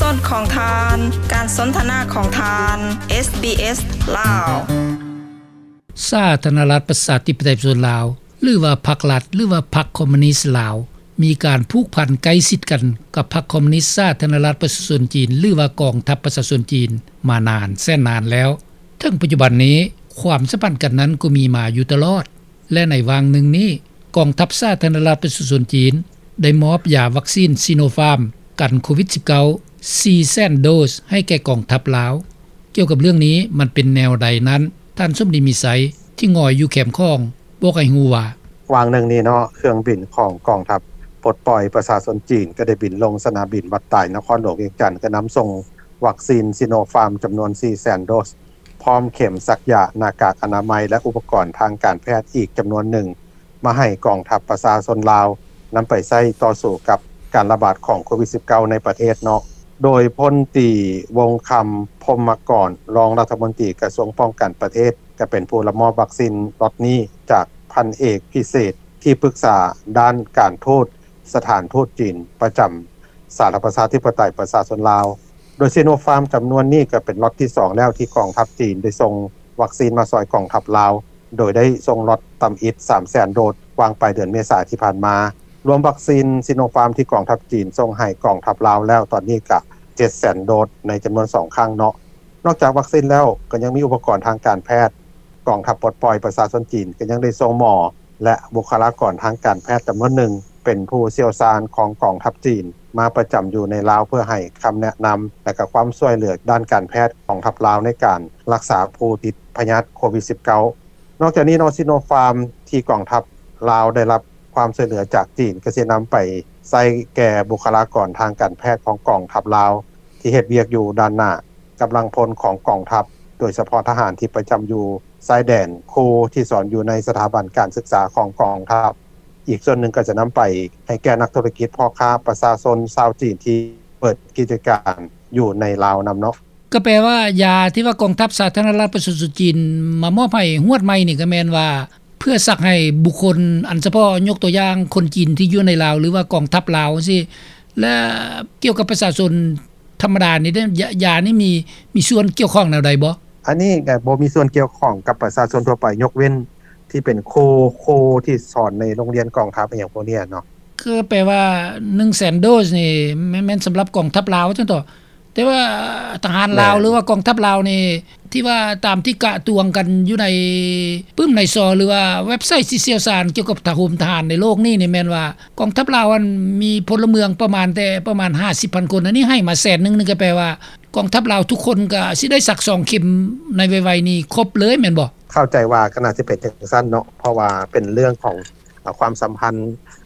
ຂອງທ່ານ ການສົນທະນາຂອງທ່ານ ເອສບີເອສ ລາວ. ສາທາລະນະລັດປະຊາທິປະໄຕປະຊາຊົນລາວ ຫຼືວ່າພັກລັດ ຫຼືວ່າພັກຄອມມູນິດລາວ ມີການຜູກພັນໃກ້ຊິດກັນກັບພັກຄອມມູນິດສາທາລະນະລັດປະຊາຊົນຈີນ ຫຼືວ່າກອງທັບປະຊາຊົນຈີນ ມານານແສນນານແລ້ວ. ເຖິງປັດຈຸບັນນີ້ ຄວາມສຳພັນກັນນັ້ນກໍມີມາຢູ່ຕະຫຼອດ ແລະ ໃນຫວ່າງໜຶ່ງນີ້ ກອງທັບສາທາລະນະລັດປະຊາຊົນຈີນ ໄດ້ມອບຢາວັກຊີນຊີໂນຟາມ ກັນໂຄວິດສິບເກົ້າ ສີ່ແສນໂດສ ໃຫ້ແກ່ກອງທັບລາວ. ກ່ຽວກັບເລື່ອງນີ້ ມັນເປັນແນວໃດນັ້ນ, ທ່ານ ສົມດີ ມີໄຊ ທີ່ງອຍຢູ່ແຄມຂອງ ບອກໃຫ້ຮູ້ວ່າ: ຫວ່າງໜຶ່ງນີ້ເນາະ ເຄື່ອງບິນຂອງກອງທັບປົດປ່ອຍປະຊາຊົນຈີນ ກໍໄດ້ບິນລົງສະໜາມບິນວັດຕາຍ ນະຄອນຫຼວງວຽງຈັນ ກໍນຳສົ່ງວັກຊີນຊີໂນຟາມ ຈຳນວນສີ່ແສນໂດສ ພ້ອມເຂັມສັກຢາ, ໜ້າກາກອະນາໄມ ແລະ ອຸປະກອນທາງການແພດອີກຈຳນວນໜຶ່ງ ມາໃຫ້ກອງທັບປະຊາຊົນລາວ ນຳໄປໃຊ້ຕໍ່ສູ້ກັບການລະບາດຂອງໂຄວິດສິບເກົ້າ ໃນປະເທດເນາະ. ໂດຍ ພົນຕີ ວົງຄຳ ພົມມະກອນ ຮອງລັດຖະມົນຕີກະຊວງປ້ອງກັນປະເທດ ກໍເປັນຜູ້ຮັບມອບວັກຊີນລັອດນີ້ ຈາກ ພັນເອກ ພິເສດ ທີ່ປຶກສາດ້ານການທູດ ສະຖານທູດຈີນປະຈຳສາທາລະນະລັດປະຊາທິປະໄຕປະຊາຊົນລາວ. ໂດຍຊີໂນຟາມຈຳນວນນີ້ກໍເປັນລັອດທີສອງແລ້ວທີ່ກອງທັບຈີນໄດ້ສົ່ງວັກຊີນມາຊ່ອຍກອງທັບລາວ, ໂດຍໄດ້ສົ່ງລັອດທຳອິດສາມແສນໂດສ ວ່າງປາຍເດືອນເມສາທີ່ຜ່ານມາ. ລວມວັກຊີນຊີໂນຟາມທີ່ກອງທັບຈີນສົ່ງໃຫ້ກອງທັບລາວແລ້ວຕອນນີ້ກະເຈັດແສນໂດສໃນຈຳນວນສອງຄັ້ງເນາະ. ນອກຈາກວັກຊີນແລ້ວ ກໍຍັງມີອຸປະກອນທາງການແພດ. ກອງທັບປົດປ່ອຍປະຊາຊົນຈີນກໍຍັງໄດ້ສົ່ງໝໍ ແລະ ບຸກຄະລາກອນທາງການແພດຈຳນວນໜຶ່ງ ເປັນຜູ້ຊ່ຽວຊານຂອງກອງທັບຈີນ ມາປະຈຳຢູ່ໃນລາວ ເພື່ອໃຫ້ຄຳແນະນຳ ແລະ ກະຄວາມຊ່ວຍເຫຼືອດ້ານການແພດກອງທັບລາວ ໃນການລັກສາຜູ້ຕິດພະຍາດໂຄວິດສິບເກົ້າ. ນອກຈາກນີ້ເນາະ ຊີໂນຟາມທີ່ກອງທັບລາວໄດ້ຮັບຄວາມຊ່ວຍເຫຼືອຈາກຈີນ ກໍຊິນຳໄປໃຊ້ແກ່ບຸກຄະລາກອນທາງການແພດຂອງກອງທັບລາວ ທີ່ເຮັດວຽກຢູ່ດ້ານໜ້າ, ກຳລັງພົນຂອງກອງທັບ, ໂດຍສະເພາະທະຫານທີ່ປະຈຳຢູ່ຊາຍແດນ, ຄູທີ່ສອນຢູ່ໃນສະຖາບັນການສຶກສາຂອງກອງທັບ. ອີກສ່ວນໜຶ່ງກໍຈະນຳໄປໃຫ້ແກ່ນັກທຸລະກິດ, ພໍ່ຄ້າ, ປະຊາຊົນຊາວຈີນທີ່ເປີດກິດຈະການຢູ່ໃນລາວນຳເນາະ. ກໍແປວ່າ ຢາທີ່ວ່າກອງທັບສາທາລະນະລັດປະຊາຊົນຈີນມາມອບໃຫ້ຮວດໃໝ່ນີ້ ກໍແມ່ນວ່າເພື່ອສັກໃຫ້ບຸກຄົນອັນສະເພາະ, ຍົກຕົວຢ່າງຄົນຈີນທີ່ຢູ່ໃນລາວ ຫຼືວ່າກອງທັບລາວຈັ່ງຊີ້ ແລະ ກ່ຽວກັບປະຊາຊົນທຳມະດານີ້ເດ້ ຢາ ຢານີ້ມີ ມີສ່ວນກ່ຽວຂ້ອງແນວໃດບໍ່? ອັນນີ້ກໍບໍ່ມີສ່ວນກ່ຽວຂ້ອງກັບປະຊາຊົນທົ່ວໄປ ຍົກເວັ້ນທີ່ເປັນຄູ, ຄູທີ່ສອນໃນໂຮງຮຽນກອງທັບ ອີ່ຫຍັງພວກນີ້ເນາະ. ຄືແປວ່າ ໜຶ່ງແສນໂດສນີ້ ແມ່ນ ແມ່ນສຳລັບກອງທັບລາວຊັ້ນເຖາະ. ແຕ່ວ່າທະຫານລາວ ແມ່ນ ຫຼືວ່າກອງທັບລາວນີ້ ທີ່ວ່າຕາມທີ່ກະຕວງກັນຢູ່ໃນປຶ້ມໃນຊໍ ຫຼືວ່າເວັບໄຊທີ່ຊ່ຽວຊານກ່ຽວກັບທະຫົມທະຫານໃນໂລກນີ້ນີ້ ແມ່ນວ່າກອງທັບລາວຫັ້ນມີພົນລະເມືອງປະມານແຕ່ປະມານຫ້າສິບພັນຄົນ, ອັນນີ້ໃຫ້ມາແສນໜຶ່ງນີ້ ກໍແປວ່າກອງທັບລາວທຸກຄົນກໍຊິໄດ້ສັກສອງເຂັມໃນໄວໆນີ້ຄົບເລີຍແມ່ນບໍ່? ເຂົ້າໃຈວ່າກໍໜ້າຊິເປັນຈັ່ງຊັ້ນເນາະ ເພາະວ່າເປັນເລື່ອງຂອງ ອາ ຄວາມສຳພັນ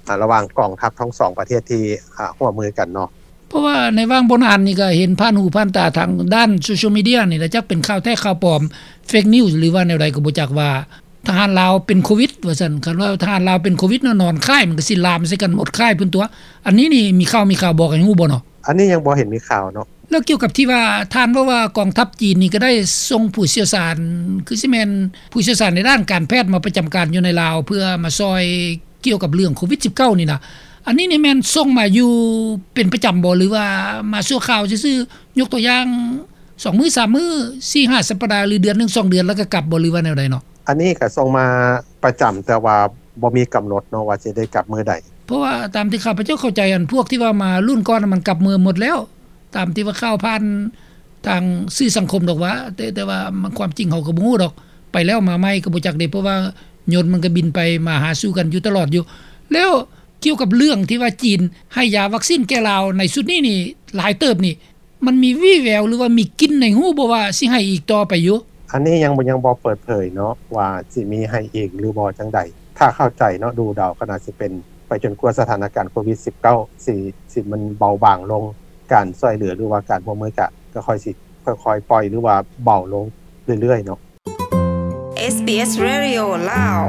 ອາ ລະຫວ່າງກອງທັບທັງສອງປະເທດທີ່ ອາ ຮ່ວມມືກັນເນາະ. ເພາະວ່າໃນຫວ່າງບໍ່ນານນີ້ກໍເຫັນຜ່ານຫູຜ່ານຕາທາງດ້ານໂຊຊຽວມີເດຍນີ້ແຫຼະ, ຈັກເປັນຂ່າວແທ້ຂ່າວປອມ ເຟກນິວສ໌ ຫຼືວ່າແນວໃດກໍບໍ່ຈັກ ວ່າທະຫານລາວເປັນໂຄວິດວ່າຊັ້ນ. ຄັນວ່າທະຫານລາວເປັນໂຄວິດເນາະ ນອນຄ້າຍ ມັນກໍຊິລາມໃສ່ກັນໝົດຄ້າຍພຸ້ນຕົວະ. ອັນນີ້ນີ້ມີຂ່າວ ມີຂ່າວບອກໃຫ້ຮູ້ບໍ່ເນາະ? ອັນນີ້ຍັງບໍ່ເຫັນມີຂ່າວເນາະ. ແລ້ວກ່ຽວກັບທີ່ວ່າທ່ານເວົ້າວ່າກອງທັບຈີນນີ້ກໍໄດ້ສົ່ງຜູ້ຊ່ຽວຊານ ຄືຊິແມ່ນຜູ້ຊ່ຽວຊານໃນດ້ານການແພດມາປະຈຳການຢູ່ໃນລາວ ເພື່ອມາຊ່ອຍກ່ຽວກັບເລື່ອງໂຄວິດສິບເກົ້ານີ້ນະ, ອັນນີ້ນີ້ແມ່ນສົ່ງມາຢູ່ເປັນປະຈຳບໍ່ ຫຼືວ່າມາຊົ່ວຄາວຊື່ໆ? ຍົກຕົວຢ່າງ ສອງມື້ ສາມມື້ ສີ່ຫ້າສັບປະດາ ຫຼືເດືອນໜຶ່ງ ສອງເດືອນ ແລ້ວກໍກັບບໍ່ ຫຼືວ່າແນວໃດເນາະ? ອັນນີ້ກໍສົ່ງມາປະຈຳ ແຕ່ວ່າບໍ່ມີກຳນົດເນາະວ່າຊິໄດ້ກັບມື້ໃດ. ເພາະວ່າຕາມທີ່ຂ້າພະເຈົ້າເຂົ້າໃຈ ອັນພວກທີ່ວ່າມາລຸ້ນກ່ອນ ມັນກັບເມືອໝົດແລ້ວ ຕາມທີ່ວ່າຂ່າວຜ່ານທາງສື່ສັງຄົມດອກວ່າ ແຕ່ ແຕ່ວ່າມັນຄວາມຈິງເຮົາກໍບໍ່ຮູ້ດອກ ໄປແລ້ວມາໃໝ່ກໍບໍ່ຈັກເດ້ ເພາະວ່າຍົນມັນກໍບິນໄປມາຫາສູ່ກັນຢູ່ຕະຫຼອດຢູ່. ແລ້ວກ່ຽວກັບເລື່ອງທີ່ວ່າຈີນໃຫ້ຢາວັກຊີນແກ່ລາວໃນຊຸດນີ້ນີ້ຫຼາຍເຕີບນີ້ ມັນມີວີ່ແວວ ຫຼືວ່າມີກິ່ນໃນຫູບໍ່ວ່າຊິໃຫ້ອີກຕໍ່ໄປຢູ່? ອັນນີ້ຍັງ ຍັງບໍ່ເປີດເຜີຍເນາະວ່າຊິມີໃຫ້ອີກຫຼືບໍ່ຈັ່ງໃດ. ຖ້າເຂົ້າໃຈເນາະ ດູເດົາກໍໜ້າຊິເປັນໄປຈົນກວ່າສະຖານະການໂຄວິດສິບເກົ້າ ຊິ ຊິມັນເບົາບາງລົງ, ການຊ່ວຍເຫຼືອ ຫຼືວ່າການຮ່ວມມືກະ ກໍຄ່ອຍຊິຄ່ອຍໆປ່ອຍ ຫຼືວ່າເບົາລົງເລື້ອຍໆເນາະ. ເອສບີເອສ Radio ລາວ.